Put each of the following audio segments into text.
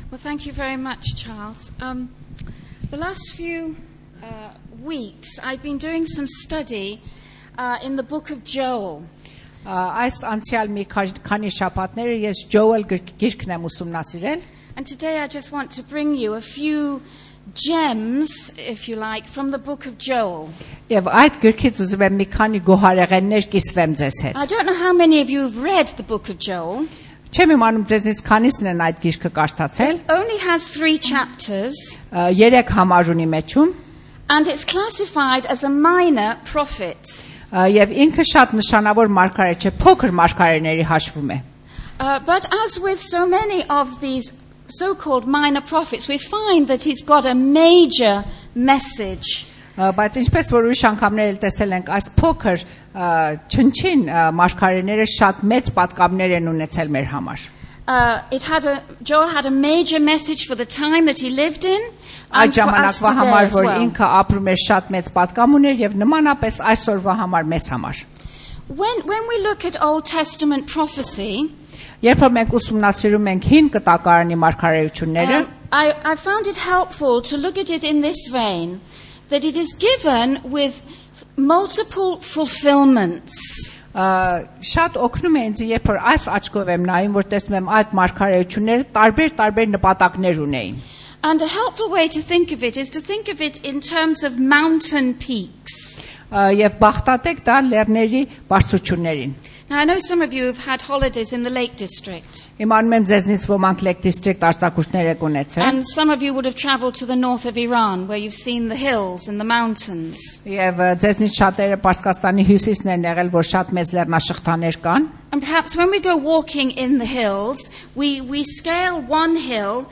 Well, thank you very much, Charles. The last few weeks, I've been doing some study in the book of Joel. Այս անցյալ մի քանի շաբաթներ ես Joel գիրքն եմ ուսումնասիրել. And today I just want to bring you a few gems, if you like, from the book of Joel. Եվ այդ գիրքից ուզում եմ մի քանի գոհարեղեններ կիսվեմ ձեզ հետ. I don't know how many of you have read the book of Joel. Չեմ իմանում ձեզնից քանիսն են այդ գիրքը կարդացել. It only has 3 chapters. 3 համար ունի մեջում. And it's classified as a minor prophet. Եվ ինքը շատ նշանավոր մարգարե չէ, փոքր մարգարեների հաշվում է. But as with so many of these so-called minor prophets, we find that he's got a major message. Բայց ինչպես որ ուրիշ անգամներ տեսել ենք, այս փոքր չնչին մարգարեները շատ մեծ պատկամներ են ունեցել մեր համար. Joel had a major message for the time that he lived in. Այդ ժամանակվա համար որ ինքը ապրում էր շատ մեծ պատկամ ուներ եւ նմանապես այսօրվա համար մեզ համար. When we look at Old Testament prophecy, երբ որ մենք ուսումնասիրում ենք հին կտակարանի մարգարեությունները, I found it helpful to look at it in this vein, that it is given with multiple fulfillments. Շատ օգնում է ինձ երբ որ այս աչքով եմ նայում, որ տեսնում եմ այդ մարգարեությունները տարբեր նպատակներ ունեին. And a helpful way to think of it is to think of it in terms of mountain peaks. Եվ բախտատեք դա լեռների բարձրություններին. Now I know some of you have had holidays in the Lake District. Իմանում եմ ձեզնից ոմանք Lake District արձակուրդներ եք ունեցել. And some of you would have traveled to the north of Iran where you've seen the hills and the mountains. Եվ ձեզնից շատերը Պարսկաստանի հյուսիսն են եղել, որ շատ մեծ լեռնաշղթաներ կան. And perhaps when we go walking in the hills, we scale one hill.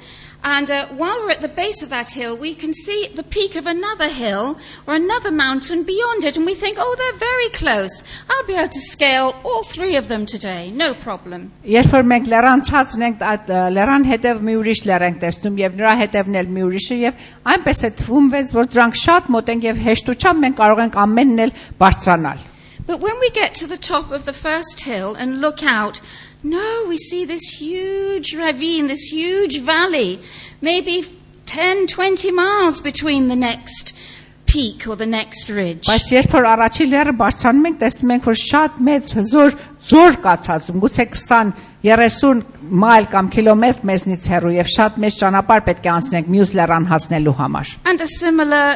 And while we're at the base of that hill, we can see the peak of another hill or another mountain beyond it. And we think, oh, they're very close. I'll be able to scale all 3 of them today. No problem. Երբ որ մենք լեռան ցածն ենք, այդ լեռան հետև մի ուրիշ լեռ ենք տեսնում եւ նրա հետևն էլ մի ուրիշը եւ այնպես է թվում վեց, որ դրանք շատ մոտ են եւ հեշտությամբ մենք կարող ենք ամենն էլ բարձրանալ. But when we get to the top of the first hill and look out, no, we see this huge ravine, this huge valley, maybe 10, 20 miles between the next peak or the next ridge. Բայց երբ որ առաջին լեռը բարձրանում ենք, տեսնում ենք, որ շատ մեծ հզոր ձոր կա ցածում, գուցե 20-30 մայլ կամ կիլոմետր մեզնից հեռու եւ շատ մեծ ճանապարհ պետք է անցնենք մյուս լեռան հասնելու համար. And a similar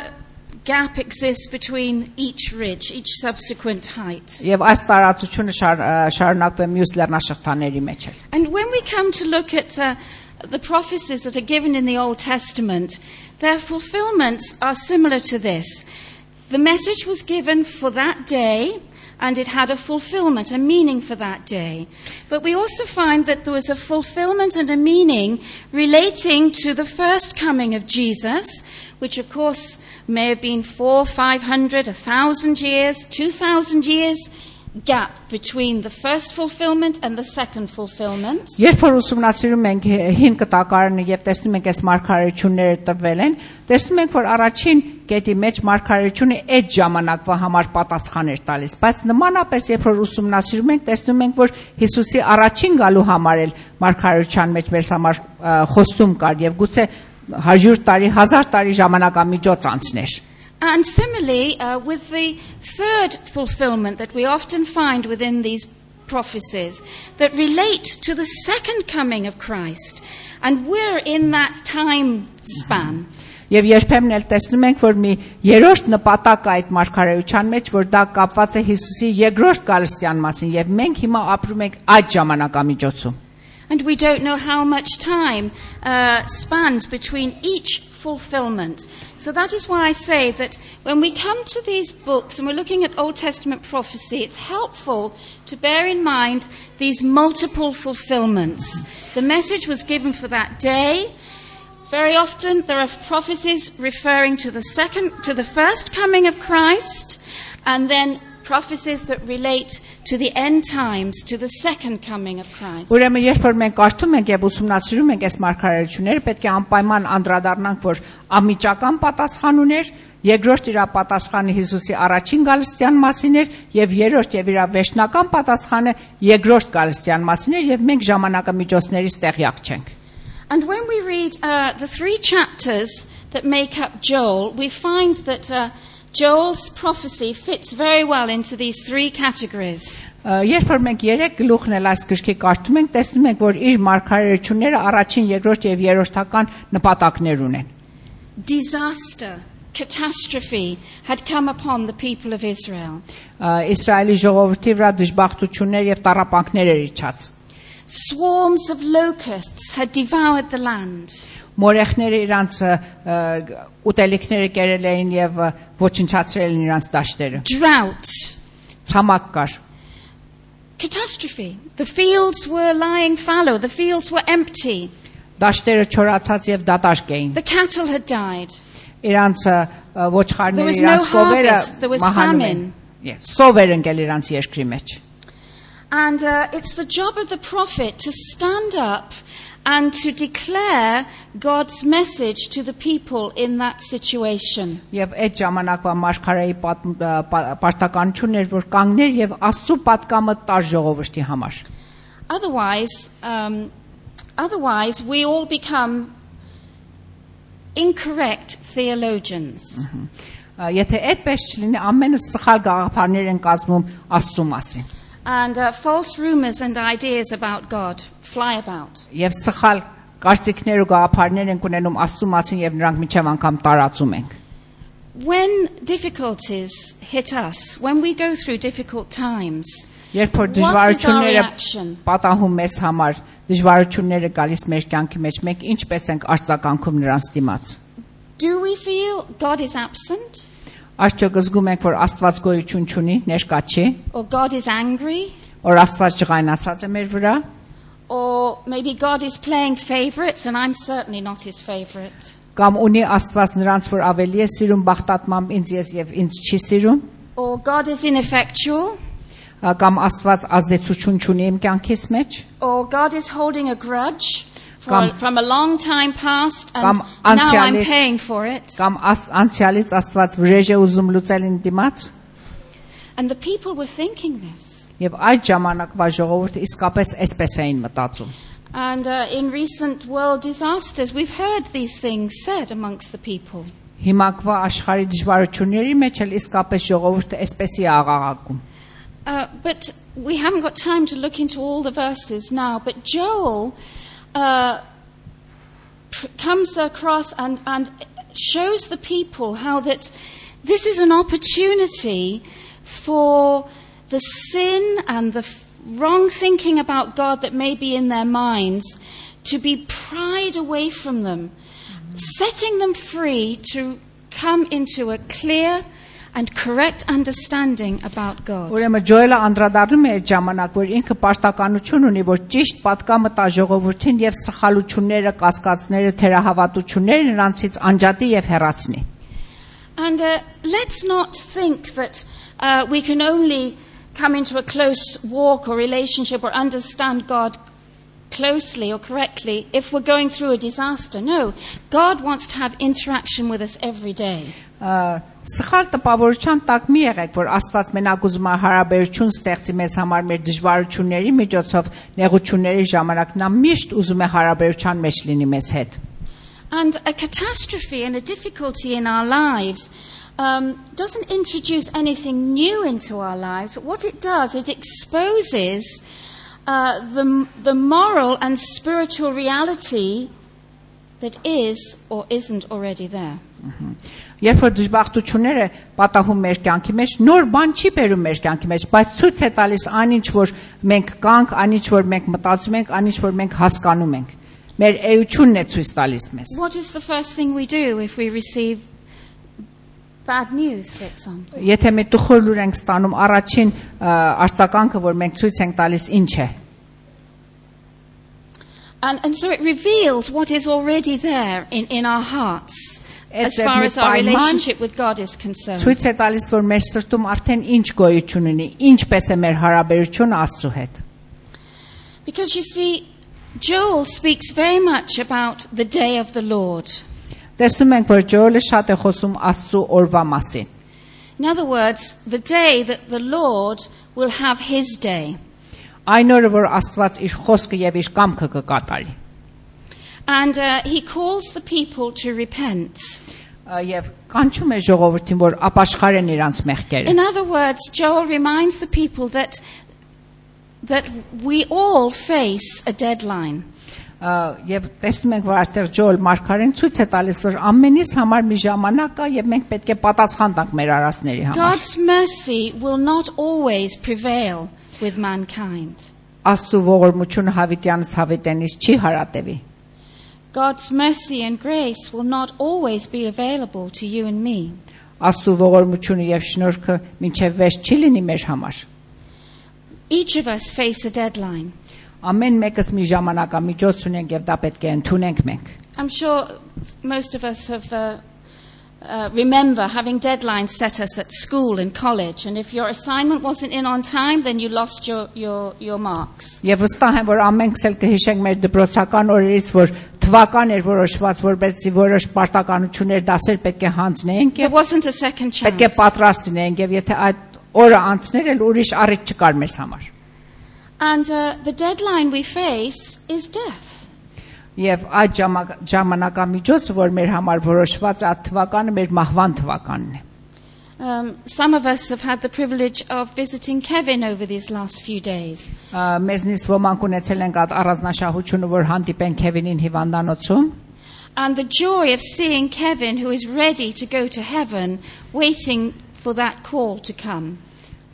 gap exists between each ridge, each subsequent height. Եվ այս տարածությունը շարունակվում է մյուս լեռնաշղթաների մեջ. And when we come to look at the prophecies that are given in the Old Testament, their fulfillments are similar to this. The message was given for that day, and it had a fulfillment, a meaning for that day. But we also find that there was a fulfillment and a meaning relating to the first coming of Jesus, which of course may have been 400, 500, 1,000 years, 2,000 years gap between the first fulfillment and the second fulfillment. Երբ որ ուսումնասիրում ենք հին կտակարանը եւ տեսնում ենք այս մարգարեությունները տվել են, տեսնում ենք որ առաջին կետի մեջ մարգարեությունը այդ ժամանակվա համար պատասխան էր տալիս, բայց նմանապես երբ որ ուսումնասիրում ենք, տեսնում ենք որ Հիսուսի առաջին գալու համար էլ մարգարեության մեջ մեր համար խոստում կար եւ գուցե 100 տարի, 1000 տարի ժամանակամիջոց անցներ. And similarly, with the third fulfillment that we often find within these prophecies that relate to the second coming of Christ. And we're in that time span. Եվ երբեմն էլ տեսնում ենք, որ մի երրորդ նպատակ այդ մարգարեության մեջ, որ դա կապված է Հիսուսի երկրորդ գալստյան մասին, եւ մենք հիմա ապրում ենք այդ ժամանակամիջոցում. And we don't know how much time spans between each fulfillment. So that is why I say that when we come to these books and we're looking at Old Testament prophecy, it's helpful to bear in mind these multiple fulfillments. The message was given for that day. Very often there are prophecies referring to the first coming of Christ, and then prophecies that relate to the end times, to the second coming of Christ. Ուրեմն երբ որ մենք կարդում ենք եւ ուսումնասիրում ենք այս մարգարեությունները, պետք է անպայման անդրադառնանք, որ անմիջական պատասխան ուներ, երկրորդ իր պատասխանը Հիսուսի առաջին գալստյան մասին էր եւ երրորդ եւ իր վերջնական պատասխանը երկրորդ գալստյան մասին էր եւ մենք ժամանակամիջոցներից տեղյակ չենք. And when we read the 3 chapters that make up Joel, we find that Joel's prophecy fits very well into these 3 categories. Երբ որ մենք 3 գլուխն էլ այս գրքի կարդում ենք, տեսնում ենք, որ իր մարգարեությունները առաջին, երկրորդ եւ երրորդական նպատակներ ունեն։ Disaster, catastrophe had come upon the people of Israel. Իսրայելի ժողովրդի վրա դժբախտություններ եւ տառապանքներ էր իջած։ Swarms of locusts had devoured the land. Մորեխները իրանց ուտելիքները կերել էին եւ ոչնչացրել են իրանց դաշտերը։ Drought. Ցամաք կար։ Catastrophe. The fields were lying fallow. The fields were empty. Դաշտերը չորացած եւ դատարկ էին։ The cattle had died. Իրանց ոչխարները, There was no իրանց կովերը harvest. There was մահանում էին։ famine. Սովեր ընկել իրանց երկրի մեջ։ And it's the job of the prophet to stand up and to declare God's message to the people in that situation. Եվ այդ ժամանակվա մարգարեի պարտականությունն էր, որ կանգներ եւ Աստծո պատկամը տար ժողովրդի համար։ Otherwise we all become incorrect theologians. Եթե այդպես չլինի, ամենը սխալ գաղափարներ են կազմում Աստծո մասին։ And false rumors and ideas about God fly about. Եվ սխալ կարծիքներ ու գաղափարներ են ունենում Աստծո մասին եւ նրանք միջև անգամ տարածում ենք։ When difficulties hit us, when we go through difficult times, երբ որ դժվարությունները պատահում մեզ համար, դժվարությունները գալիս մեր կյանքի մեջ, մենք ինչպես ենք արձագանքում նրանց դիմաց։ Do we feel God is absent? Արդյոք զգում ենք, որ Աստված գոյություն չունի, ներկա չի, Or God is angry? որ Աստված ջղայնացած է մեր վրա, Or maybe God is playing favorites and I'm certainly not his favorite. կամ ունի Աստված նրանց, որ ավելի է սիրում բախտատմամբ ինձ եւ ինձ չի սիրում, Or God is ineffectual? կամ Աստված ազդեցություն չունի իմ կյանքիս մեջ, Or God is holding a grudge Կամ- from a long time past and Կամ now I'm անցյալի- paying for it. կամ անցյալից Աստված վրեժ է ուզում լուծել իմ դիմաց, And the people were thinking this. եւ այդ ժամանակվա ժողովուրդը իսկապես այսպես էին մտածում։ And in recent world disasters, we've heard these things said amongst the people. Հիմակվա աշխարհի դժվարությունների մեջ էլ իսկապես ժողովուրդը այսպես է աղաղակում։ But we haven't got time to look into all the verses now. But Joel comes across and shows the people how that this is an opportunity for the sin and the wrong thinking about God that may be in their minds to be pried away from them, setting them free to come into a clear and correct understanding about God. Ուրեմն Ջոելը անդրադառնում է այդ ժամանակ, որ ինքը պարտականություն ունի, որ ճիշտ պատկամը տա ժողովրդին եւ սխալությունները, կասկածները, թերահավատությունները նրանցից անջատի եւ հեռացնի։ And let's not think that we can only come into a close walk or relationship or understand God closely or correctly if we're going through a disaster. No, God wants to have interaction with us every day. Սխալ տպավորության տակ մի եղեք, որ Աստված մենակ ուզում է հարաբերություն ստեղծի մեզ համար մեր դժվարությունների միջոցով, նեղությունների ժամանակ նա միշտ ուզում է հարաբերության մեջ լինի մեզ հետ։ And a catastrophe and a difficulty in our lives doesn't introduce anything new into our lives, but what it does is it exposes the moral and spiritual reality that is or isn't already there. Երբ որ դժբախտությունները պատահում մեր կյանքի մեջ, նոր բան չի բերում մեր կյանքի մեջ, բայց ցույց է տալիս այնինչ որ մենք կանք, այնինչ որ մենք մտածում ենք, այնինչ որ մենք հասկանում ենք։ Մեր էությունն է ցույց տալիս մեզ։ What is the first thing we do if we receive bad news, for example? Եթե մենք տխուր լուր ենք ստանում, առաջին արձագանքը, որ մենք ցույց ենք տալիս, ինչ է։ And so it reveals what is already there in our hearts. As far as our relationship with God is concerned. Ցույց է տալիս, որ մեր սրտում արդեն ինչ գոյություն ունի, ինչպես է մեր հարաբերությունը Աստծո հետ։ Because you see, Joel speaks very much about the day of the Lord. Տեսնում ենք, որ Ջոելը շատ է խոսում Աստծո օրվա մասին։ In other words, the day that the Lord will have his day. Այն օրը, որ Աստված իր խոսքը եւ իր կամքը կկատարի։ And he calls the people to repent. Եվ կանչում է ժողովրդին, որ ապաշխարեն իրանց մեղքերը։ In other words, Joel reminds the people that we all face a deadline. Եվ տեսնում ենք, որ այստեղ Ջոել մարգարեն ցույց է տալիս, որ ամենից համար մի ժամանակ կա եւ մենք պետք է պատասխան տանք մեր արածների համար։ God's mercy will not always prevail with mankind. Աստծո ողորմությունը հավիտյանից հավիտենից չի հարատևի։ God's mercy and grace will not always be available to you and me. Աստծո ողորմությունը եւ շնորհքը մինչեւ վերջ չի լինի մեր համար։ Each of us face a deadline. Ամեն մեկս մի ժամանակամիջոց ունենք եւ դա պետք է ընդունենք մենք։ I'm sure most of us have remember having deadlines set us at school and college, and if your assignment wasn't in on time, then you lost your marks. Եվ վստահ եմ, որ ամենքս էլ կհիշենք մեր դպրոցական օրերից, որ թվական էր որոշված, որպեսզի որոշ պարտականություններ դասեր պետք է հանձնենք There եւ wasn't a second chance. պետք է պատրաստ լինենք եւ եթե այդ օրը անցներ էլ ուրիշ առիթ չկար մեզ համար։ And the deadline we face is death. Եվ այդ ժամանակամիջոցը, որ մեր համար որոշված է, այդ թվականը մեր մահվան թվականն է։ Some of us have had the privilege of visiting Kevin over these last few days. Մեզնից ոմանք ունեցել ենք այդ առանձնաշահությունը, որ հանդիպեն Քևինին հիվանդանոցում։ And the joy of seeing Kevin, who is ready to go to heaven, waiting for that call to come.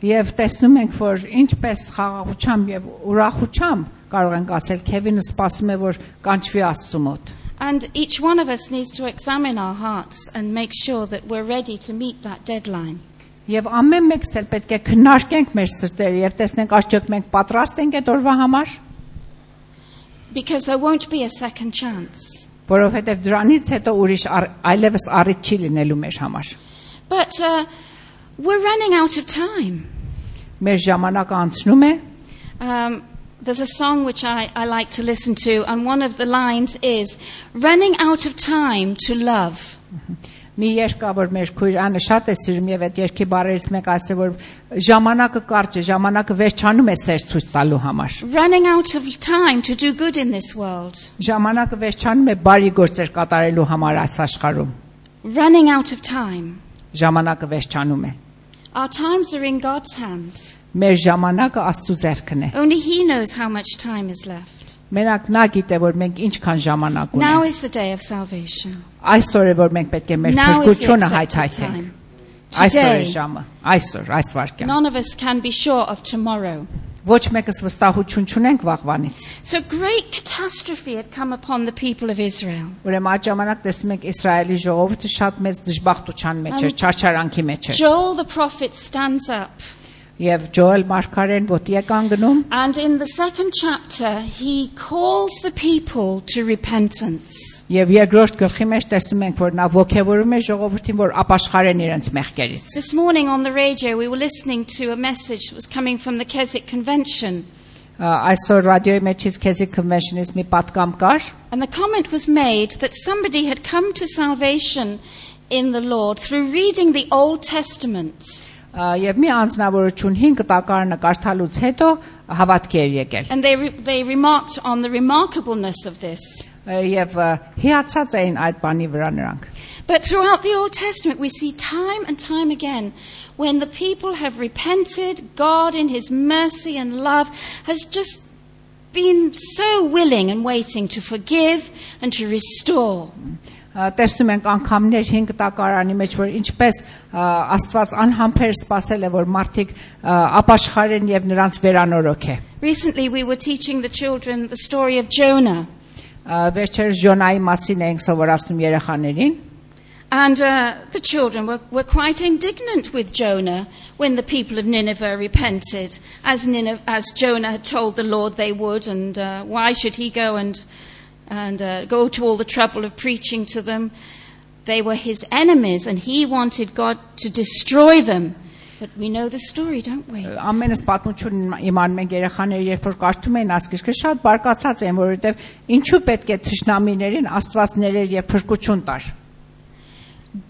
Եվ տեսնում ենք, որ ինչպես խաղաղությամբ եւ ուրախությամբ կարող ենք ասել Քևինը սպասում է, որ կանչվի Աստծո մոտ։ And each one of us needs to examine our hearts and make sure that we're ready to meet that deadline. Եվ ամեն մեկս էլ պետք է քննարկենք մեր սրտերը եւ տեսնենք արդյոք մենք պատրաստ ենք այդ օրվա համար։ Because there won't be a second chance. Որովհետեւ դրանից հետո ուրիշ այլևս առիթ չի լինելու մեր համար։ But we're running out of time. Մեր ժամանակը անցնում է։ There's a song which I like to listen to, and one of the lines is, running out of time to love. Մի երգ կա, որ մեր քույրանը շատ է սիրում եւ այդ երգի բառերից մեկ ասել, որ ժամանակը կարճ է, ժամանակը վերջանում է սեր ցույց տալու համար։ Running out of time to do good in this world. Ժամանակը վերջանում է բարի գործեր կատարելու համար այս աշխարհում։ Running out of time. Ժամանակը վերջանում է։ Our times are in God's hands. Մեր ժամանակը Աստծո ձեռքն է։ Only He knows how much time is left. Մենակ նա գիտե, որ մենք ինչքան ժամանակ Now ունենք։ is the day of salvation. Այսօր է, որ մենք պետք է մեր Now is the փրկությունը accepted հայթայթենք։ time. Այսօր է Today, ժամը, այսօր, այս վարքյան։ none of us can be sure of tomorrow. Ոչ մեկս վստահություն չունենք վաղվանից։ So great catastrophe had come upon the people of Israel. Ուրեմն այդ ժամանակ տեսնում ենք Իսրայելի ժողովուրդը շատ մեծ դժբախտության մեջ էր, չարչարանքի մեջ էր։ Joel the prophet stands up. Եվ Ջոել մարգարեն ոտի է կանգնում։ And in the second chapter, he calls the people to repentance. Եվ երկրորդ գլխի մեջ տեսնում ենք, որ նա ողջևորում է ժողովրդին, որ ապաշխարեն իրենց մեղքերից։ This morning on the radio, we were listening to a message that was coming from the Keswick Convention. Այսօր ռադիոյի մեջից Keswick Convention-ից մի պատգամ կար։ And the comment was made that somebody had come to salvation in the Lord through reading the Old Testament. Եվ մի անձնավորություն 5 տակարանը կարդալուց հետո հավատքի էր եկել։ And they remarked on the remarkableness of this. Եվ հիացած էին այդ բանի վրա նրանք։ But throughout the Old Testament, we see time and time again when the people have repented, God in His mercy and love has just been so willing and waiting to forgive and to restore. Տեսնում ենք անգամներ 5 տակարանի մեջ, որ ինչպես Աստված անհամբեր սпасել է, որ մարդիկ ապաշխարեն եւ նրանց վերանորոգ է։ Recently we were teaching the children the story of Jonah. Վերջերս Ջոնայի մասին ենք սովորացնում երեխաներին։ And the children were quite indignant with Jonah when the people of Nineveh repented, as Jonah had told the Lord they would, and why should he go and go to all the trouble of preaching to them? They were his enemies, and he wanted God to destroy them. But we know the story, don't we? Ամենս պատմությունն իմանում ենք երեխաները, երբ որ կարդում են ասկիչը, շատ բարկացած են, որովհետև ինչու պետք է թշնամիներին Աստված ներեր եւ փրկություն տար։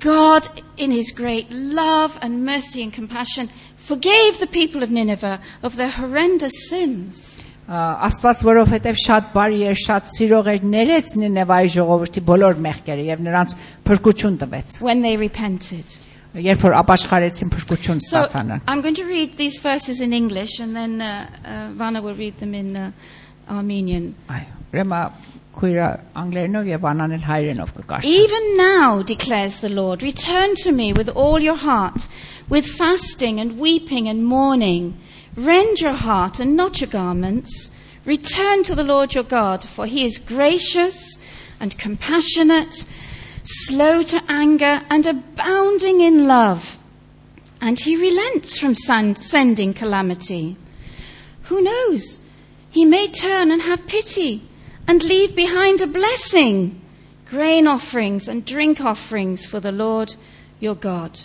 God, in His great love and mercy and compassion, forgave the people of Nineveh of their horrendous sins. Աստված որովհետև շատ բարի էր, շատ սիրող էր, ներեց Նինևայի ժողովրդի բոլոր մեղքերը եւ նրանց փրկություն տվեց։ when they repented. Երբ որ ապաշխարեցին փրկություն So ստացան։ I'm going to read these verses in English and then Vana will read them in Armenian. Ուրեմն քույրը անգլերենով եւ Անան էլ հայերենով կկարդա։ Even now, declares the Lord, return to me with all your heart, with fasting and weeping and mourning. Rend your heart and not your garments. Return to the Lord your God, for he is gracious and compassionate, slow to anger and abounding in love. And he relents from sending calamity. Who knows? He may turn and have pity and leave behind a blessing, grain offerings and drink offerings for the Lord your God.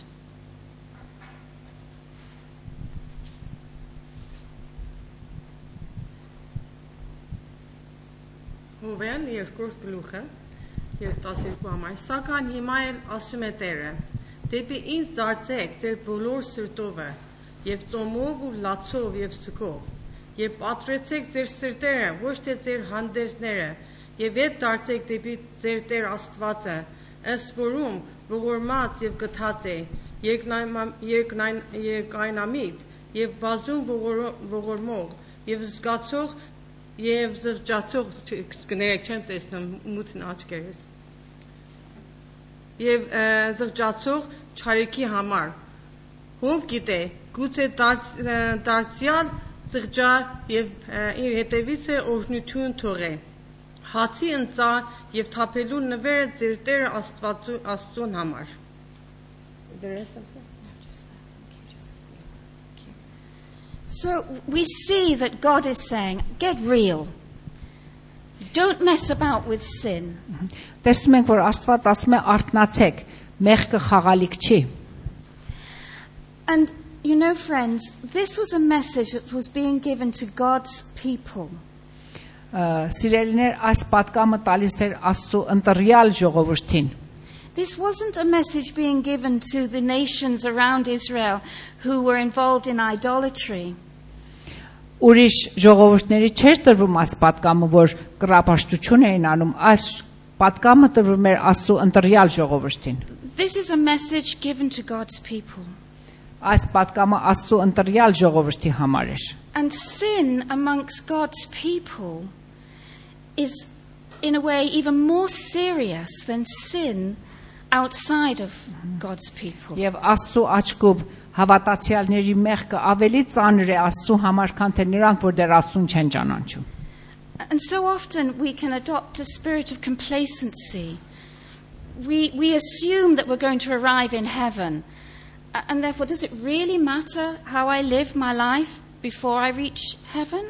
Հովեն երկրորդ գլուխը եւ 12 համար սակայն հիմա էլ ասում է Տերը դեպի ինձ դարձեք ձեր բոլոր սրտովը եւ ծոմով ու լացով եւ սկով եւ պատրեցեք ձեր սրտերը ոչ թե ձեր հանդեսները եւ ետ դարձեք դեպի ձեր Տեր Աստվածը ըստ որում ողորմած եւ գթած է երկայնամիտ եւ բազում ողորմող եւ զգացող Եվ զղջացող կներեք չեմ տեսնում մութն աչքերս Եվ զղջացող չարիքի համար Ով գիտե գուցե դարձյալ զղջա եւ իր հետևից է օրհնություն թողե Հացի ընծա եւ թափելու նվերը ձեր Տեր Աստծուն համար The rest of that So we see that God is saying, get real. Don't mess about with sin. Տեսնում ենք որ Աստված ասում է արթնացեք, մեղքը խաղալիք չի։ And you know friends, this was a message that was being given to God's people. Սիրելիներ, այս պատկամը տալիս էր Աստծո ընտրյալ ժողովրդին։ This wasn't a message being given to the nations around Israel who were involved in idolatry. Ուրիշ ժողովուրդների չէր տրվում այս պատկամը, որ կռապաշտություն էին անում, այս պատկամը տրվում էր Աստծո ընտրյալ ժողովրդին։ This is a message given to God's people. Այս պատկամը Աստծո ընտրյալ ժողովրդի համար էր։ And sin amongst God's people is in a way even more serious than sin outside of God's people. Եվ Աստծո աչքով հավատացյալների մեղքը ավելի ծանր է Աստծո համար, քան թե նրանք, որ դեռ Աստծուն չեն ճանաչում։ And so often we can adopt a spirit of complacency. We assume that we're going to arrive in heaven. And therefore, does it really matter how I live my life before I reach heaven?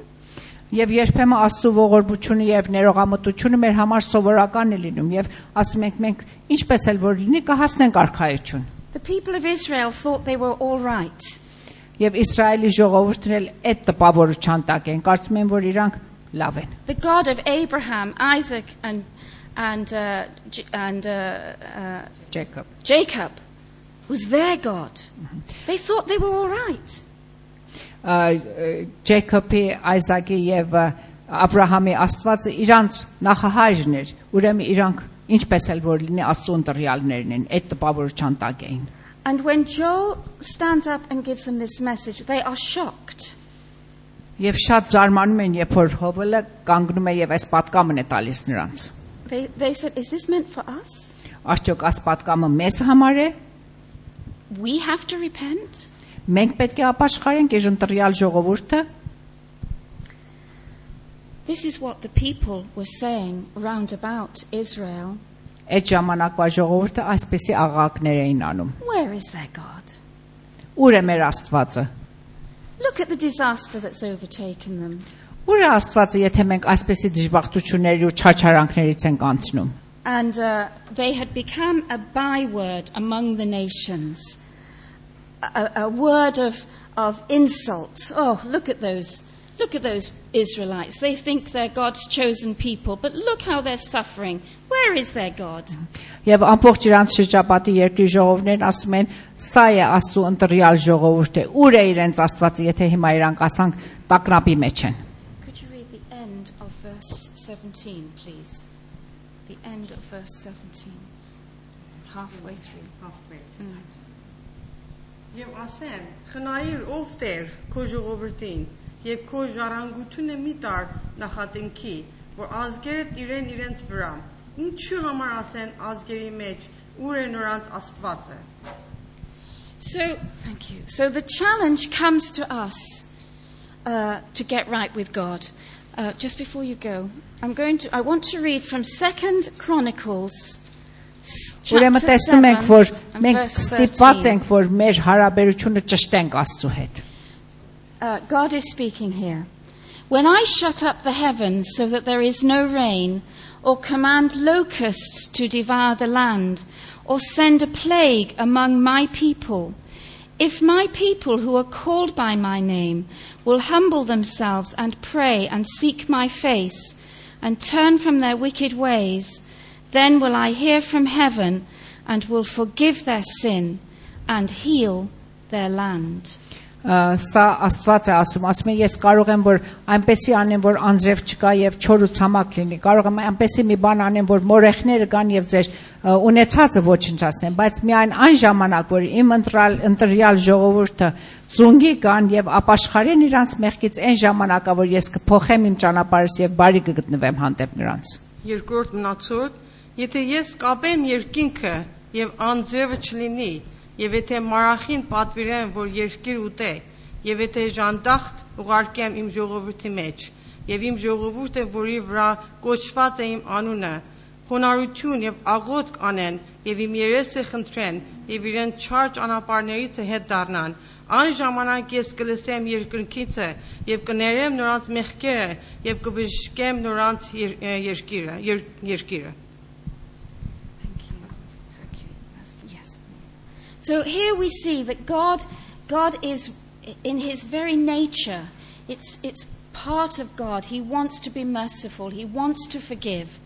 Եվ երբեմն Աստծո ողորմությունը եւ ներողամտությունը մեր համար սովորական է լինում եւ ասում ենք մենք ինչպես էլ որ լինի կհասնենք արքայություն։ The people of Israel thought they were all right. Եվ Իսրայելի ժողովուրդն էլ այդ տպավորության տակ են, կարծում են որ իրանք լավ են։ The God of Abraham, Isaac and Jacob was their God. They thought they were all right. Ջեյքոբի, Այզակի եւ Աբրահամի Աստվածը իրանց նախահայրն էր, ուրեմն իրանք ինչպես էլ որ լինի Աստծո ընտրյալներն են, այդ տպավորության տակ էին։ And when Joel stands up and gives them this message, they are shocked. Եվ շատ զարմանում են, երբ որ Հովելը կանգնում է եւ այս պատկամն է տալիս նրանց։ They said, is this meant for us? Արդյոք այս պատկամը մեզ համար է։ We have to repent? Մենք պետք է ապաշխարենք այս ընտրյալ ժողովուրդը։ This is what the people were saying round about Israel. Այդ ժամանակվա ժողովուրդը այսպեսի աղաղակներ էին անում։ Where is their God? Ուր է մեր Աստվածը։ Look at the disaster that's overtaken them. Ուր է Աստվածը, եթե մենք այսպեսի դժբախտությունների ու չարչարանքներից ենք անցնում։ And they had become a byword among the nations. A word of insult. Oh, look at those Israelites. They think they're God's chosen people, but look how they're suffering. Where is their God? Եվ ամբողջ իրանց շրջապատի երկրի ժողովներն ասում են, սա է Աստծո ընտրյալ ժողովուրդը, ուր է իրենց Աստվածը, եթե հիմա իրանք ասանք տագնապի մեջ են։ Could you read 17, please. The end of verse 17. Halfway through. Եվ ասեմ, խնայիր ով Տեր քո ժողովրդին, եւ քո ժառանգությունը մի տար նախատինքի, որ ազգերդ իրենց վրա, ինչու համար ասեն ազգերի մեջ, ուր է նրանց Աստվածը։ So, thank you. So the challenge comes to us to get right with God. Just before you go, I want to read from 2 Chronicles. Ուրեմն տեսնում ենք, որ մենք ստիպված ենք, որ մեր հարաբերությունը ճշտենք Աստծո հետ։ God is speaking here. When I shut up the heavens so that there is no rain, or command locusts to devour the land, or send a plague among my people, if my people who are called by my name will humble themselves and pray and seek my face and turn from their wicked ways, then will I hear from heaven and will forgive their sin and heal their land. Սա Աստված է ասում է, ես կարող եմ որ այնպեսի անեմ, որ անձրև չկա եւ չոր ու ցամաք լինի, կարող եմ այնպեսի մի բան անեմ, որ մորեխները կան եւ ձեր ունեցածը ոչնչացնեն, բայց միայն այն ժամանակ, որ իմ ընտրյալ ժողովուրդը ծունգի կան եւ ապաշխարեն իրանց մեղքից, այն ժամանակա, որ ես կփոխեմ իմ ճանապարհս եւ բարի կգտնվեմ հանդեպ նրանց։ Երկրորդ մնացորդ, եթե ես կապեմ երկինքը եւ անձրևը չլինի, եւ եթե մարախին պատվիրեմ, որ երկիր ուտե, եւ եթե ժանդախտ ուղարկեմ իմ ժողովրդի մեջ, եւ իմ ժողովուրդը, որի վրա կոչված է իմ անունը, խոնարհություն եւ աղոթք անեն, եւ իմ երեսը խնդրեն, եւ իրեն չար ճանապարհներից հետ դառնան, այն ժամանակ ես կլսեմ երկնքիցը եւ կներեմ նրանց մեղքերը եւ կբժշկեմ նրանց երկիրը։ So here we see that God is in his very nature. It's part of God. He wants to be merciful. He wants to forgive.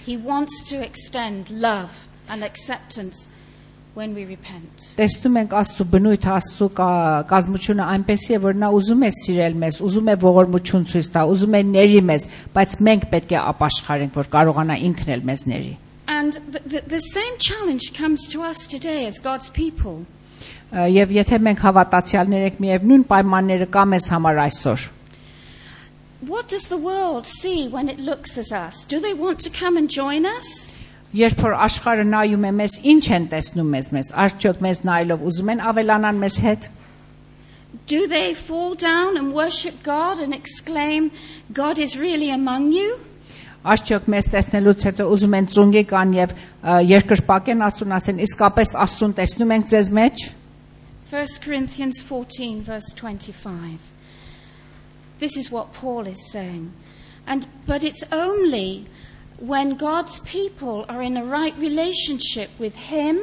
He wants to extend love and acceptance when we repent. Տեսնում ենք Աստծո բնույթը, Աստծո կազմությունը այնպեսի է, որ նա ուզում է սիրել մեզ, ուզում է ողորմություն ցույց տա, ուզում է ների մեզ, բայց մենք պետք է ապաշխարենք, որ կարողանա ինքն էլ մեզ ների։ And the same challenge comes to us today as God's people. Եվ եթե մենք հավատացյալներ ենք, միևնույն պայմանները կա մեզ համար այսօր։ What does the world see when it looks at us? Do they want to come and join us? Երբ որ աշխարհը նայում է մեզ, ինչ են տեսնում մեզ, արդյոք մեզ նայելով ուզում են ավելանան մեզ հետ։ Do they fall down and worship God and exclaim, God is really among you? Արդյոք մեզ տեսնելուց հետո ուզում են ծունգի կան եւ երկրպագեն Աստուն ասեն, իսկապես Աստուն տեսնում ենք ձեզ մեջ։ 1 Corinthians 14 verse 25. This is what Paul is saying. But it's only when God's people are in a right relationship with him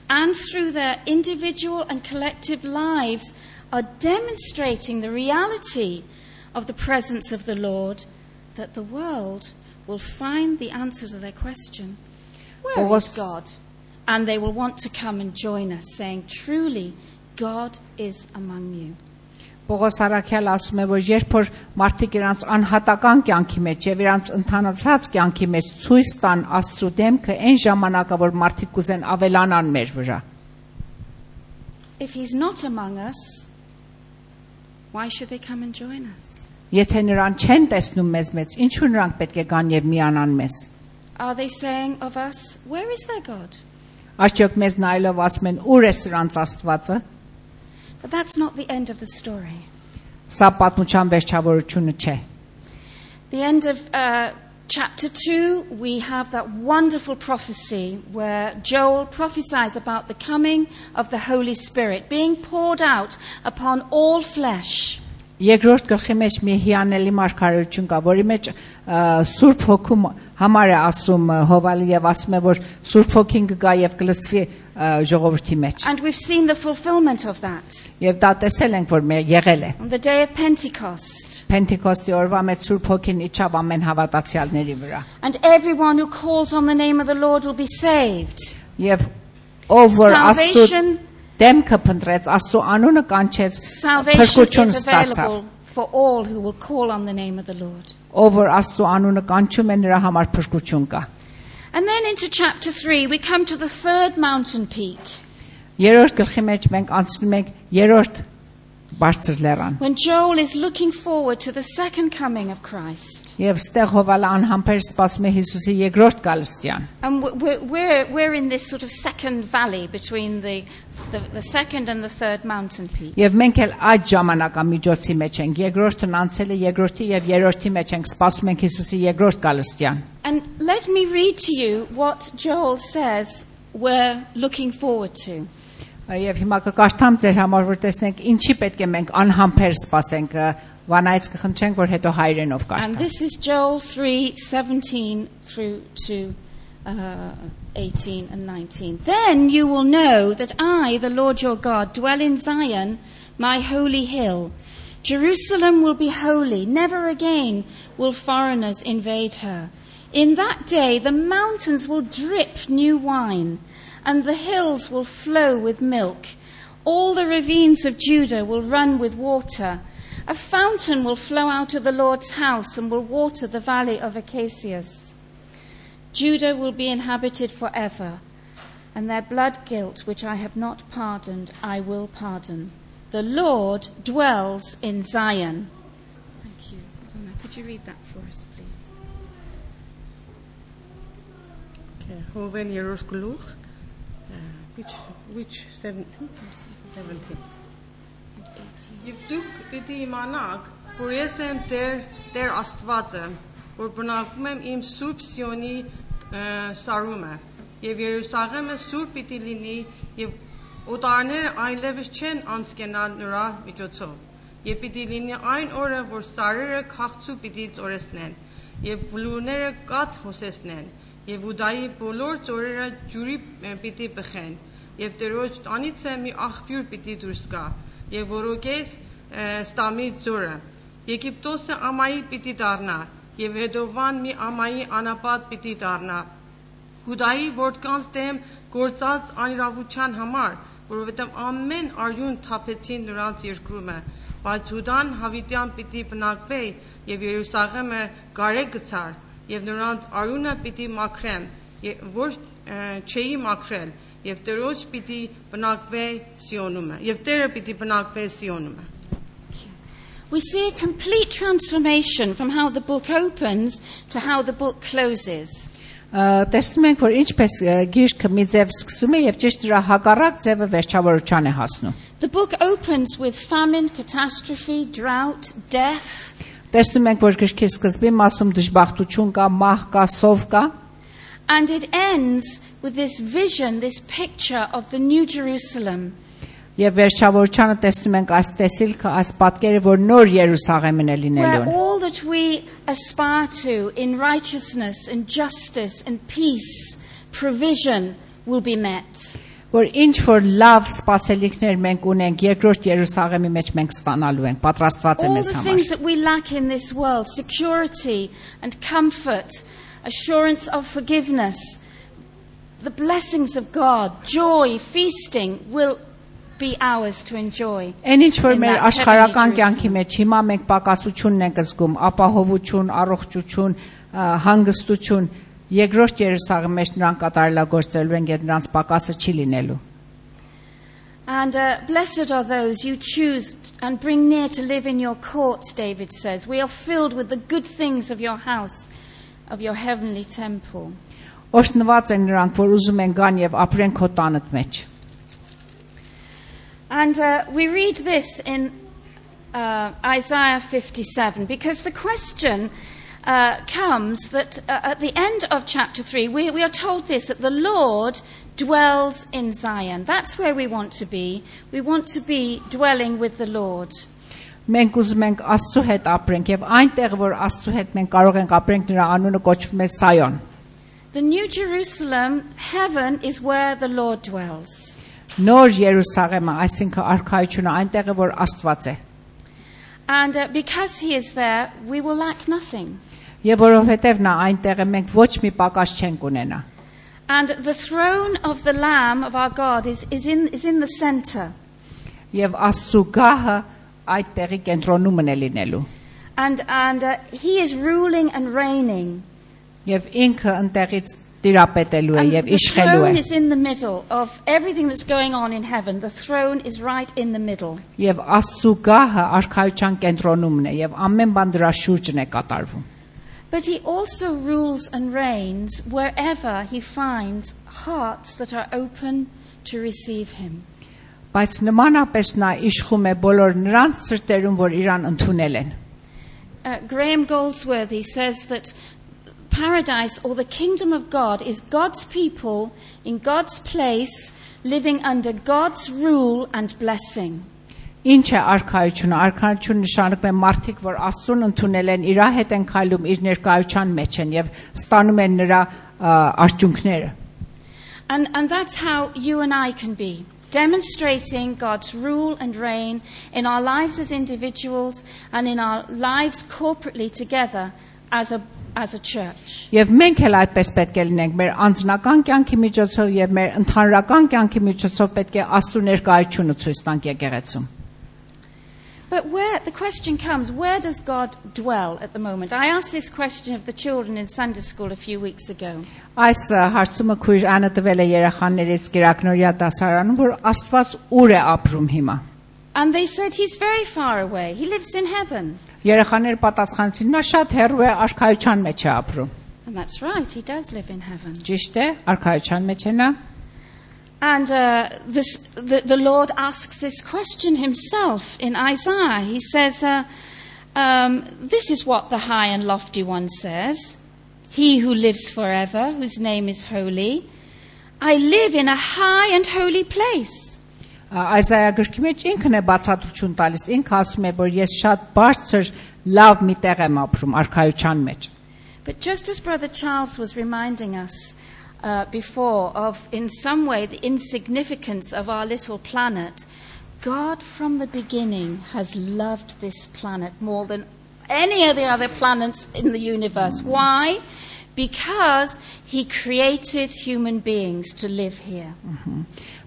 and through their individual and collective lives are demonstrating the reality of the presence of the Lord that the world will find the answer to their question. Where is God? And they will want to come and join us, saying, truly, God is among you. Պողոս Արաքյալը ասում է, որ երբ որ մարդիկ իրանց անհատական կյանքի մեջ եւ իրանց ընդհանրացած կյանքի մեջ ցույց տան Աստծո դեմքը, այն ժամանակա որ մարդիկ կուզեն ավելանան մեր վրա. If he's not among us, why should they come and join us? Եթե նրան չեն տեսնում մեզ մեջ, ինչու նրանք պետք է գան եւ միանան մեզ? Are they saying of us, where is their God? Արդյոք մեզ նայելով ասում են, ուր է սրանց Աստվածը? But that's not the end of the story. Սա պատմության վերջավորությունը չէ. The end of chapter 2, we have that wonderful prophecy where Joel prophesies about the coming of the Holy Spirit being poured out upon all flesh. Երկրորդ գլխի մեջ մի հիանալի մարգարեություն կա, որի մեջ Սուրբ Հոգու համար է ասում Հովալը եւ ասում է, որ Սուրբ Հոգին կգա եւ կլցվի ժողովրդի մեջ. And we've seen the fulfillment of that. Եվ դա տեսել ենք, որ եղել է. On the day of Pentecost. Pentecost-ի օրվա մեջ Սուրբ Հոգին իջավ ամեն հավատացյալների վրա. And everyone who calls on the name of the Lord will be saved. Եվ ով որ Աստծո դեմքը փնտրեց, Աստծո անունը կանչեց, փրկություն ստացավ. for all who will call on the name of the Lord. Ով որ Աստծո անունը կանչում է նրա համար փրկություն կա։ And then into chapter 3, we come to the third mountain peak. Երրորդ գլխի մեջ մենք անցնում ենք երրորդ բարձր լեռան։ When Joel is looking forward to the second coming of Christ. Եվ ստեղ Հովալը անհամբեր սպասում է Հիսուսի երկրորդ գալստյան։ And we're in this sort of second valley between the second and the third mountain peak. Եվ մենք էլ այդ ժամանակամիջոցի մեջ ենք։ Երկրորդն անցել է, երկրորդի եւ երրորդի մեջ ենք սպասում ենք Հիսուսի երկրորդ գալստյան։ And let me read to you what Joel says we're looking forward to. Եվ հիմա կկարդամ ձեր համար, որ տեսնենք ինչի պետք է մենք անհամբեր սպասենք, վանայից կխնդրենք, որ հետո հայրենով And կարդամ։ this is Joel 3:17 through to 18 and 19. Then you will know that I, the Lord your God, dwell in Zion, my holy hill. Jerusalem will be holy. Never again will foreigners invade her. In that day the mountains will drip new wine, and the hills will flow with milk. All the ravines of Judah will run with water. A fountain will flow out of the Lord's house and will water the valley of acacias. Judah will be inhabited forever, and their blood guilt, which I have not pardoned, I will pardon. The Lord dwells in Zion. Thank you. Could you read that for us, please? Okay, Hoven Yerushalayim. Which 17? 17. Եվ դուք պիտի իմանաք, որ ես եմ Տեր Աստվածը, որ բնակվում եմ իմ Սուրբ Սիոնի սարումը, եւ Երուսաղեմը սուրբ պիտի լինի, եւ օտարները այլևս չեն անցկենալ նրա միջոցով, եւ պիտի լինի այն օրը, որ սարերը քաղցու պիտի ծորեսնեն, եւ բլուրները կաթ հոսեցնեն, եւ Ուդայի բոլոր ծորերը ջուրի պիտի բխեն, եւ Տերոջ տանից է մի աղբյուր պիտի դուրս գա, եւ որոքես ստամի ձորը, Եգիպտոսը ամայի պիտի դառնա, եւ Էդովան մի ամայի անապատ պիտի դառնա, Հուդայի որդկանց դեմ գործած անիրավության համար, որովհետեւ ամեն արյուն թափեցին նրանց երկրումը, բայց Հուդան հավիտյան պիտի բնակվի, եւ Երուսաղեմը գարեկ գցար, եւ նրանց արյունը պիտի մաքրեմ, որ չէի մաքրել, եւ Տերոջ պիտի բնակվի Սիոնումը, եւ Տերը պիտի բնակվի Սիոնումը։ We see a complete transformation from how the book opens to how the book closes. Տեսնում ենք, որ ինչպես գիրքը մի ձև սկսում է եւ ճիշտ դրա հակառակ ձևը վերջավորության է հասնում։ The book opens with famine, catastrophe, drought, death. Տեսնում ենք, որ գրքի սկզբին մասում դժբախտություն կա, մահ կա, սով կա։ And it ends with this vision, this picture of the New Jerusalem. Եվ վերջավորությանը տեսնում ենք այս տեսիլքը, այս պատկերը, որ նոր Երուսաղեմն է լինելու։ Where all that we aspire to in righteousness and justice and peace, provision will be met. Որ ինչ որ լավ սպասելիքներ մենք ունենք երկրորդ Երուսաղեմի մեջ մենք ստանալու ենք, պատրաստված է All մեզ the համար։ things that we lack in this world, security and comfort, assurance of forgiveness, the blessings of God, joy, feasting will be ours to enjoy. Այն ինչ որ in մեր that աշխարհական heavenly կյանքի մեջ հիմա մենք պակասությունն ենք զգում, ապահովություն, առողջություն, հանգստություն, երկրորդ Երուսաղեմի մեջ նրանք կատարելագործելու են, եւ նրանց պակասը չի լինելու։ And blessed are those you choose and bring near to live in your courts, David says. We are filled with the good things of your house, of your heavenly temple. Օրհնված են նրանք, որ ուզում են գան եւ ապրեն քո տանդ մեջ։ And we read this in Isaiah 57, because the question comes that at the end of chapter 3, we are told this, that the Lord dwells in Zion. That's where we want to be. We want to be dwelling with the Lord. Մենք ուզում ենք Աստծո հետ ապրենք եւ այնտեղ որ Աստծո հետ մենք կարող ենք ապրենք նրա անունը կոչվում է Սայոն։ The New Jerusalem, heaven, is where the Lord dwells. Նոր Երուսաղեմը, այսինքն արքայությունը այնտեղ է որ Աստված է։ And because he is there, we will lack nothing. Եվ որովհետև նա այնտեղ է, մենք ոչ մի պակաս չենք ունենա։ And the throne of the Lamb of our God is in the center. Եվ Աստծո գահը այդ տեղի կենտրոնում է լինելու։ And he is ruling and reigning. Եվ ինքը ընտեղից տիրապետելու է And եւ the իշխելու throne է։ is in the middle of everything that's going on in heaven. The throne is right in the middle. Եվ Աստծո գահը արքայության կենտրոնումն է եւ ամեն բան դրա շուրջն է կատարվում։ But he also rules and reigns wherever he finds hearts that are open to receive him. Բայց նմանապես նա իշխում է բոլոր նրանց սրտերում, որ իրան ընդունել են։ Graham Goldsworthy says that paradise or the kingdom of God is God's people in God's place living under God's rule and blessing. Ինչ է արքայությունը։ Արքայությունը նշանակում է մարդիկ, որ Աստծուն ընդունել են, իր հետ են քայլում, իր ներկայության մեջ են եւ ստանում են նրա արդյունքները։ And that's how you and I can be, demonstrating God's rule and reign in our lives as individuals and in our lives corporately together as a church. Եվ մենք էլ այդպես պետք է լինենք մեր անձնական կյանքի միջոցով եւ մեր ընդհանրական կյանքի միջոցով պետք է Աստծո ներկայությունը ցույց տանք եկեղեցում։ But the question comes, where does God dwell at the moment? I asked this question of the children in Sunday school a few weeks ago. Այս հարցումը քույր Անը տվել է երեխաներից Կիրակնորյա դասարանում, որ Աստված ուր է ապրում հիմա։ And they said he's very far away. He lives in heaven. Երեխաները պատասխանեցին, նա շատ հեռու է, արքայության մեջ է ապրում։ And that's right, he does live in heaven. Ճիշտ է, արքայության մեջ է նա։ And the Lord asks this question himself in Isaiah. He says, this is what the high and lofty one says, he who lives forever, whose name is holy. I live in a high and holy place. Isaiah գրքի մեջ ինքն է բացատրություն տալիս, ինքը ասում է, որ ես շատ բարձր լավ մի տեղ եմ ապրում, արքայության մեջ։ But just as Brother Charles was reminding us before of, in some way, the insignificance of our little planet, God from the beginning has loved this planet more than any of the other planets in the universe. Why? Because he created human beings to live here.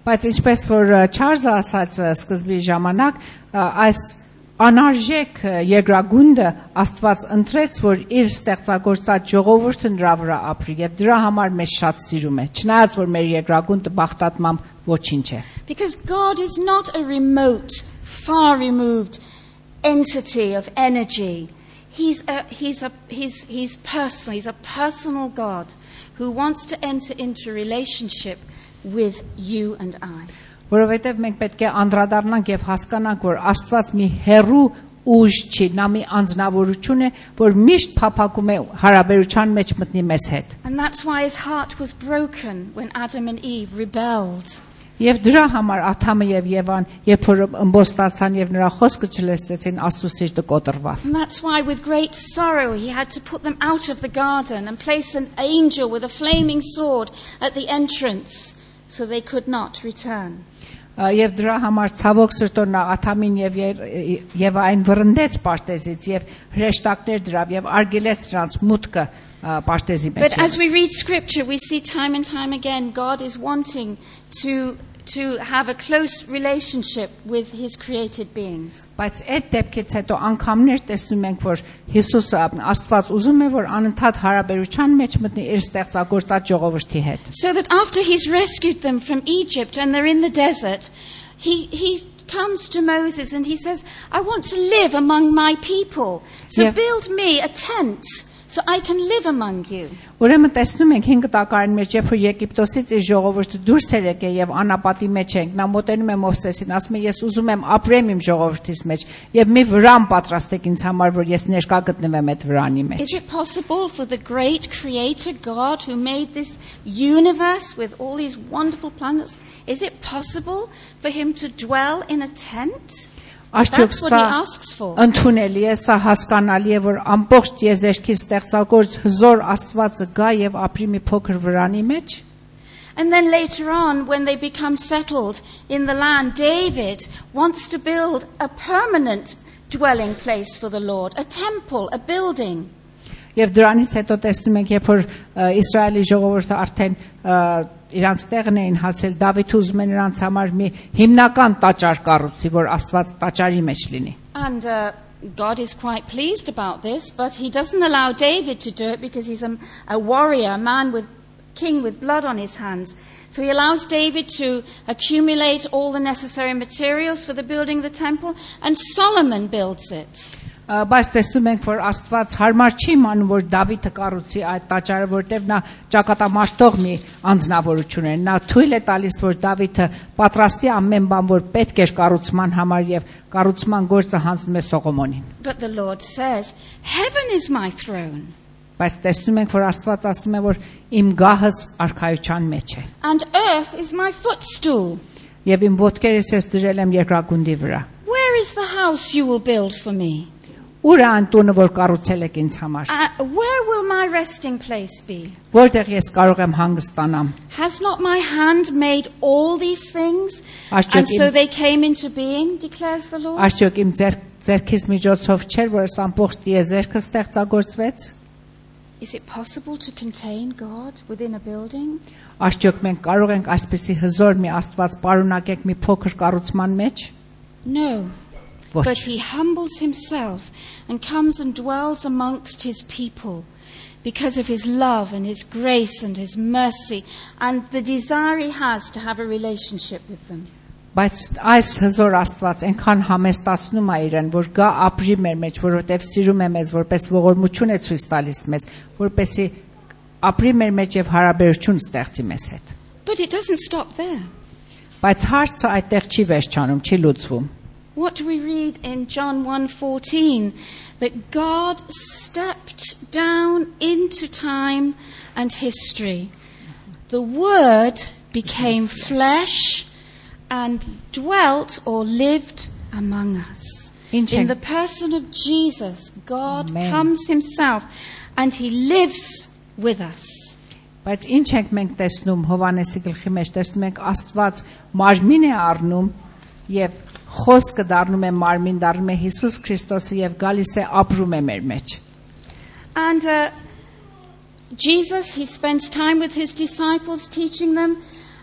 Բայց ինչպես որ Չարլզը ասաց սկզբի ժամանակ, այս անարժեք երկրագունդը Աստված ընտրեց, որ իր ստեղծագործած ժողովուրդը նրա վրա ապրի եւ դրա համար մեզ շատ սիրում է, չնայած որ մեր երկրագունդը բախտատմամբ ոչինչ է։ Because God is not a remote, far removed entity of energy. He's personal. He's a personal God who wants to enter into relationship with you and I. Որովհետև մենք պետք է անդրադառնանք եւ հասկանանք, որ Աստված մի հերու ուժ չի, նա մի անձնավորություն է, որ միշտ փափագում է հարաբերության մեջ մտնի մեզ հետ։ And that's why his heart was broken when Adam and Eve rebelled. Եվ դրա համար Ադամը եւ Եվան, երբ որ ըմբոստացան եւ նրա խոսքը չլսեցին, Աստծո սիրտը կոտրվավ։ And that's why with great sorrow he had to put them out of the garden and place an angel with a flaming sword at the entrance so they could not return. Եվ դրա համար ցավոք սրտով նա Ադամին եւ այն վռնդեց պարտեզից եւ հրեշտակներ դրավ եւ արգելեց նրանց մուտքը պարտեզի մեջ։ But as we read scripture, we see time and time again God is wanting to have a close relationship with his created beings. Բայց այդ դեպքից հետո անգամներ տեսնում ենք, որ Հիսուսը Աստված ուզում է, որ անընդհատ հարաբերության մեջ մտնի իր ստեղծագործած ժողովրդի հետ։ So that after he's rescued them from Egypt and they're in the desert, he comes to Moses and he says, I want to live among my people. So build me a tent so I can live among you. Ուրեմն տեսնում ենք 5 տակարանի մեջ, երբ որ Եգիպտոսից իր ժողովուրդը դուրս էր եկել եւ անապատի մեջ ենք, նա մոտենում է Մովսեսին, ասում է, ես ուզում եմ ապրեմ իմ ժողովրդիս մեջ եւ մի վրան պատրաստեք ինձ համար, որ ես ներկա գտնվեմ այդ վրանի մեջ։ Is it possible for the great creator God who made this universe with all these wonderful planets, is it possible for him to dwell in a tent? That's what he asks for. Ընդունելի է, սա հասկանալի է, որ ամբողջ եզերքի ստեղծագործ հզոր Աստվածը գա եւ ապրի մի փոքր վրանի մեջ։ And then later on, when they become settled in the land, David wants to build a permanent dwelling place for the Lord, a temple, a building. Եվ դրանից հետո տեսնում ենք, երբ որ Իսրայելի ժողովուրդը արդեն իրանց տեղն էին հասել, Դավիթ ուզում է նրանց համար մի հիմնական տաճար կառուցի, որ Աստված տաճարի մեջ լինի։ And God is quite pleased about this, but he doesn't allow David to do it because he's a warrior, a king with blood on his hands. So he allows David to accumulate all the necessary materials for the building of the temple, and Solomon builds it. Բայց տեսնում ենք, որ Աստված հարմար չի իմանում, որ Դավիթը կառուցի այդ տաճարը, որտեղ նա ճակատամարտող մի անձնավորություն է։ Նա թույլ է տալիս, որ Դավիթը պատրաստի ամեն բան, որ պետք էր կառուցման համար, եւ կառուցման գործը հանձնում է Սողոմոնին։ But the Lord says, "Heaven is my throne." Բայց տեսնում ենք, որ Աստված ասում է, որ իմ գահս արքայության մեջ է։ And earth is my footstool. Եվ իմ ոտքերս ես դրել եմ երկրագնդի վրա։ Where is the house you will build for me? Ուր է այն տունը, որ կառուցել եք ինձ համար։ Where will my resting place be? Որտեղ ես կարող եմ հանգստանամ։ Has not my hand made all these things? Արդյոք And so they came into being, declares the Lord. Արդյոք իմ ձեռքից միջոցով չէր, որ այս ամբողջ տիեզերքը ստեղծագործվեց։ Is it possible to contain God within a building? Արդյոք մենք կարող ենք այսպեսի հզոր մի Աստված պարունակել մի փոքր կառուցման մեջ։ No. Ոչ։ But he humbles himself and comes and dwells amongst his people because of his love and his grace and his mercy and the desire he has to have a relationship with them. Բայց այս հզոր Աստված այնքան համեստացնում է իրեն, որ գա ապրի մեր մեջ, որովհետև սիրում է մեզ, որպես ողորմություն է ցույց տալիս մեզ, որպեսի ապրի մեր մեջ եւ հարաբերություն ստեղծի մեզ հետ։ But it doesn't stop there. Բայց հարցը այդտեղ չի վերջանում, չի լուծվում։ What do we read in John 1:14? That God stepped down into time and history. The Word became flesh and dwelt or lived among us. In the person of Jesus, God Amen. comes himself and he lives with us. Բայց ինչ ենք մենք տեսնում Հովանեսի գլխի մեջ, տեսնում ենք Աստված մարմին է առնում եւ խոսքը դառնում է մարմին, դառնում է Հիսուս Քրիստոսը եւ գալիս է ապրում է մեր մեջ։ And Jesus, he spends time with his disciples teaching them.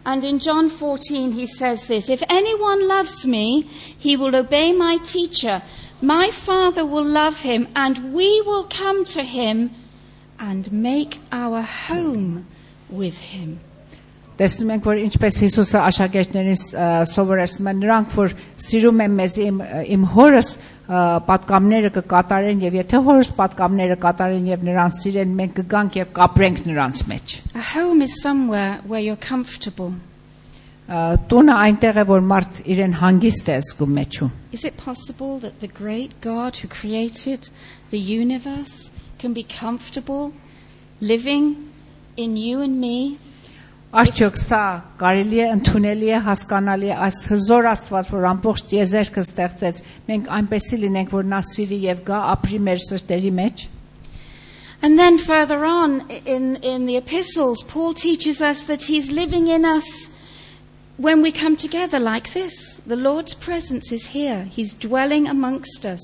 And in John 14 he says this, "If anyone loves me, he will obey my teacher. My Father will love him, and we will come to him and make our home with him." Տեսնում ենք, որ ինչպես Հիսուսը աշակերտներին սովորեցնում է, նրանք որ սիրում են մեզ իմ հորս պատկամները կկատարեն եւ եթե հորս պատկամները կատարեն եւ նրանց սիրեն, մենք կգանք եւ կապրենք նրանց մեջ։ A home is somewhere where you're comfortable. Տունը այնտեղ է, որ մարդ իրեն հանգիստ է զգում մեջում։ Is it possible that the great God who created the universe can be comfortable living in you and me? Արդյոք սա կարելի է, ընդունելի է, հասկանալի է, այս հզոր Աստված, որ ամբողջ տիեզերքը ստեղծեց, մենք այնպեսի լինենք, որ նա սիրի եւ գա ապրի մեր սրտերի մեջ։ And then further on in the epistles, Paul teaches us that he's living in us when we come together like this. The Lord's presence is here. He's dwelling amongst us.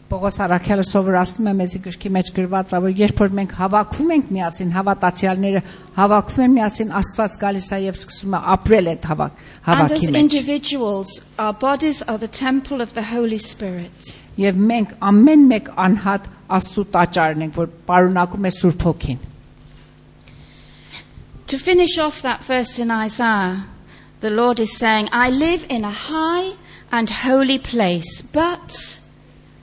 Պողոս առաքյալը սովորացնում է մեզ գրքի մեջ գրված, որ երբ որ մենք հավաքվում ենք միասին, հավատացյալները հավաքվում են միասին, Աստված գալիս է եւ սկսում է ապրել այդ հավաքի And as մեջ։ individuals, our bodies are the temple of the Holy Spirit. Եվ մենք ամեն մեկ անհատ Աստծո տաճարն ենք, որ պարունակում է Սուրբ Հոգին։ To finish off that verse in Isaiah, the Lord is saying, "I live in a high and holy place, but..."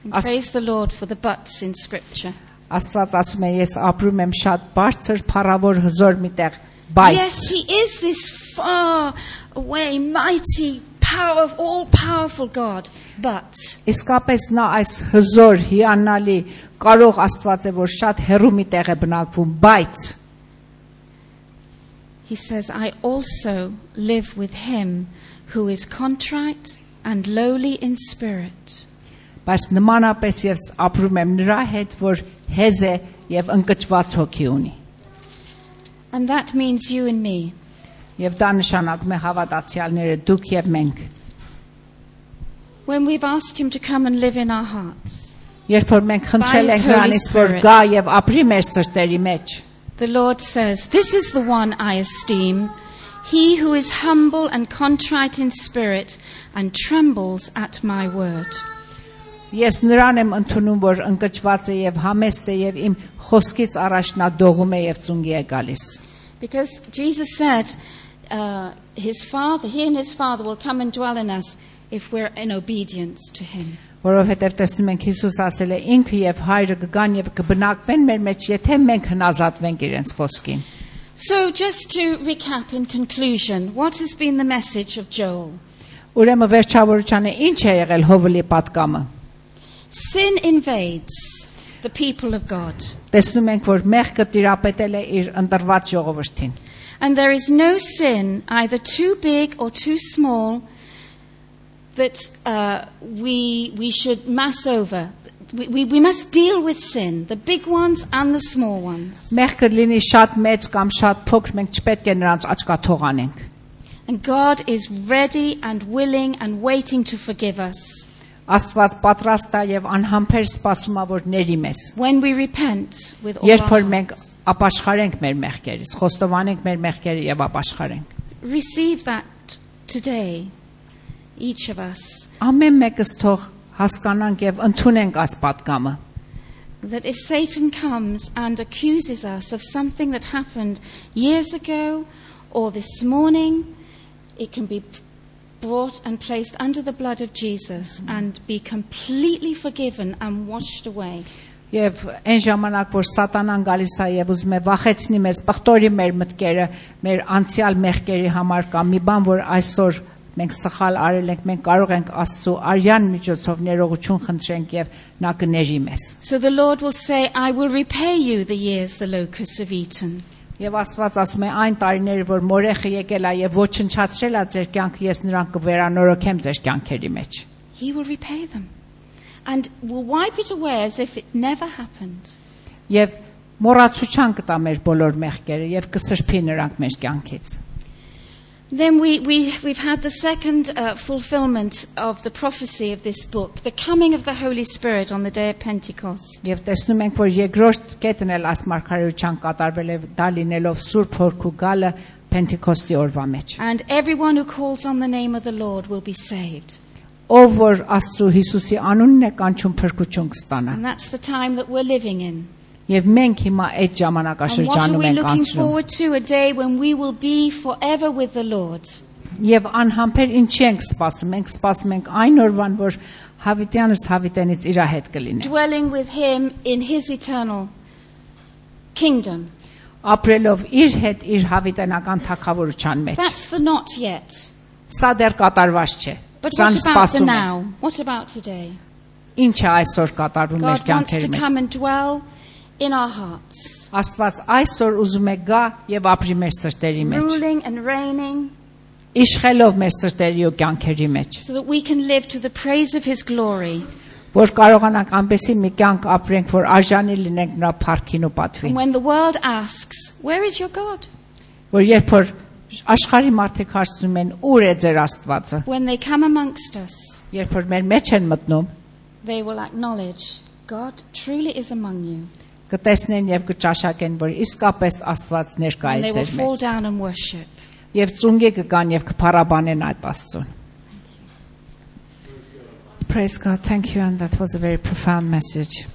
And praise the Lord for the buts in Scripture. Աստված ասում է, ես ապրում եմ շատ բարձր, փառավոր, հզոր մի տեղ, բայց Yes, he is this far away, mighty, all-powerful God, but իսկապես նա այս հզոր, հիանալի, կարող Աստված է, որ շատ հեռու մի տեղ է բնակվում, բայց he says, "I also live with him who is contrite and lowly in spirit." Բայց նմանապես ես ապրում եմ նրա հետ, որ հեզ է եւ ընկճված հոգի ունի։ And that means you and me. Եվ դա նշանակում է հավատացյալները, դուք եւ մենք։ When we've asked him to come and live in our hearts, Երբ որ մենք խնդրել By ենք His Holy նրանից որ Spirit. գա եւ ապրի մեր սրտերի մեջ, The Lord says, "This is the one I esteem, he who is humble and contrite in spirit and trembles at my word." ես նրան եմ ընդունում, որ ընկճված է եւ համեստ է եւ իմ խոսքից առաջ նա դողում է եւ ծունգի է գալիս։ Because Jesus said, he and his Father will come and dwell in us if we're in obedience to him. Որովհետեւ տեսնում ենք Հիսուս ասել է ինքը եւ հայրը կգան եւ կբնակվեն մեր մեջ, եթե մենք հնազատվենք իրենց խոսքին։ So just to recap in conclusion, what has been the message of Joel? Ուրեմն վերջավորությանը ինչ է եղել Հովելի պատկամը։ Sin invades the people of God. Տեսնում ենք, որ մեղքը տիրապետել է իր ընտրված ժողովրդին։ And there is no sin, either too big or too small, that we should mass over. We must deal with sin, the big ones and the small ones. Մեղքը լինի շատ մեծ կամ շատ փոքր, մենք չպետք է նրանց աչքաթող անենք։ And God is ready and willing and waiting to forgive us. Աստված պատրաստ է եւ անհամբեր սպասում է, որ ների մեզ։ When we repent with all Երբ our որ մենք hearts. ապաշխարենք մեր մեղքերից, խոստովանենք մեր մեղքերը եւ ապաշխարենք։ Receive that today, each of us. Ամեն մեկս թող հասկանանք եւ ընդունենք այս պատկամը։ That if Satan comes and accuses us of something that happened years ago or this morning, it can be brought and placed under the blood of Jesus and be completely forgiven and washed away. Եվ այն ժամանակ, որ սատանան գալիս է եւ ուզում է վախեցնի մեզ, բխտորի մեր մտքերը, մեր անցյալ մեղքերի համար կամ մի բան, որ այսօր մենք սխալ արել ենք, մենք կարող ենք Աստծո արյան միջոցով ներողություն խնդրենք եւ նա կների մեզ։ So the Lord will say, I will repay you the years the locusts have eaten. Եվ Աստված ասում է այն տարիները, որ մորեխը եկել է եւ ոչնչացրել է ձեր կյանքը, ես նրան կվերանորոգեմ ձեր կյանքերի մեջ։ He will repay them and will wipe it away as if it never happened. Եվ մոռացության կտա մեր բոլոր մեղքերը եւ կսրբի նրանք մեր կյանքից։ Then we've had the second fulfillment of the prophecy of this book, the coming of the Holy Spirit on the day of Pentecost. Եվ տեսնում ենք, որ երկրորդ կետն էլ այս մարգարեության կատարվել է դա լինելով Սուրբ Հոգու գալը Պենտեկոստի օրվա մեջ։ And everyone who calls on the name of the Lord will be saved. Ով որ Աստծո Հիսուսի անունն է կանչում փրկություն կստանա։ And that's the time that we're living in. Եվ մենք հիմա այդ And what are ժամանակաշրջանում we ենք looking անցնում։ forward to? A day when we will be forever with the Lord. Եվ անհամբեր ինչի ենք սպասում։ Մենք սպասում ենք այն օրվան, որ հավիտյանս հավիտենից իր հետ կլինի։ Dwelling with him in his eternal kingdom. Ապրելով իր հետ իր հավիտենական թագավորության մեջ։ That's the not yet. Սա դեռ կատարված չէ։ But Սրան what about the սպասում ենք։ now? What about today? Ինչ է այսօր կատարվում մեր God wants կյանքերի to մեջ։ come and dwell in our hearts, Աստված այսօր ուզում է գա եւ ապրի մեր սրտերի մեջ։ ruling and reigning, Իշխելով մեր սրտերի ու կյանքերի մեջ, so that we can live to the praise of his glory. որ կարողանանք այնպեսի մի կյանք ապրենք, որ արժանի լինենք նրա փառքին ու And պատվին։ when the world asks, where is your God? Որ երբ որ աշխարհի մարդիկ հարցնում են, ուր է ձեր Աստվածը, When they come amongst us, երբ որ մեր մեջ են մտնում, they will acknowledge, God truly is among you. կտեսնեն եւ կճաշակեն, որ իսկապես Աստված ներկա And է they will ձեր fall մեջ։ down and worship. Եվ ծունգի կգան եւ կփառաբանեն այդ Աստծուն։ Praise God. Thank you, and that was a very profound message.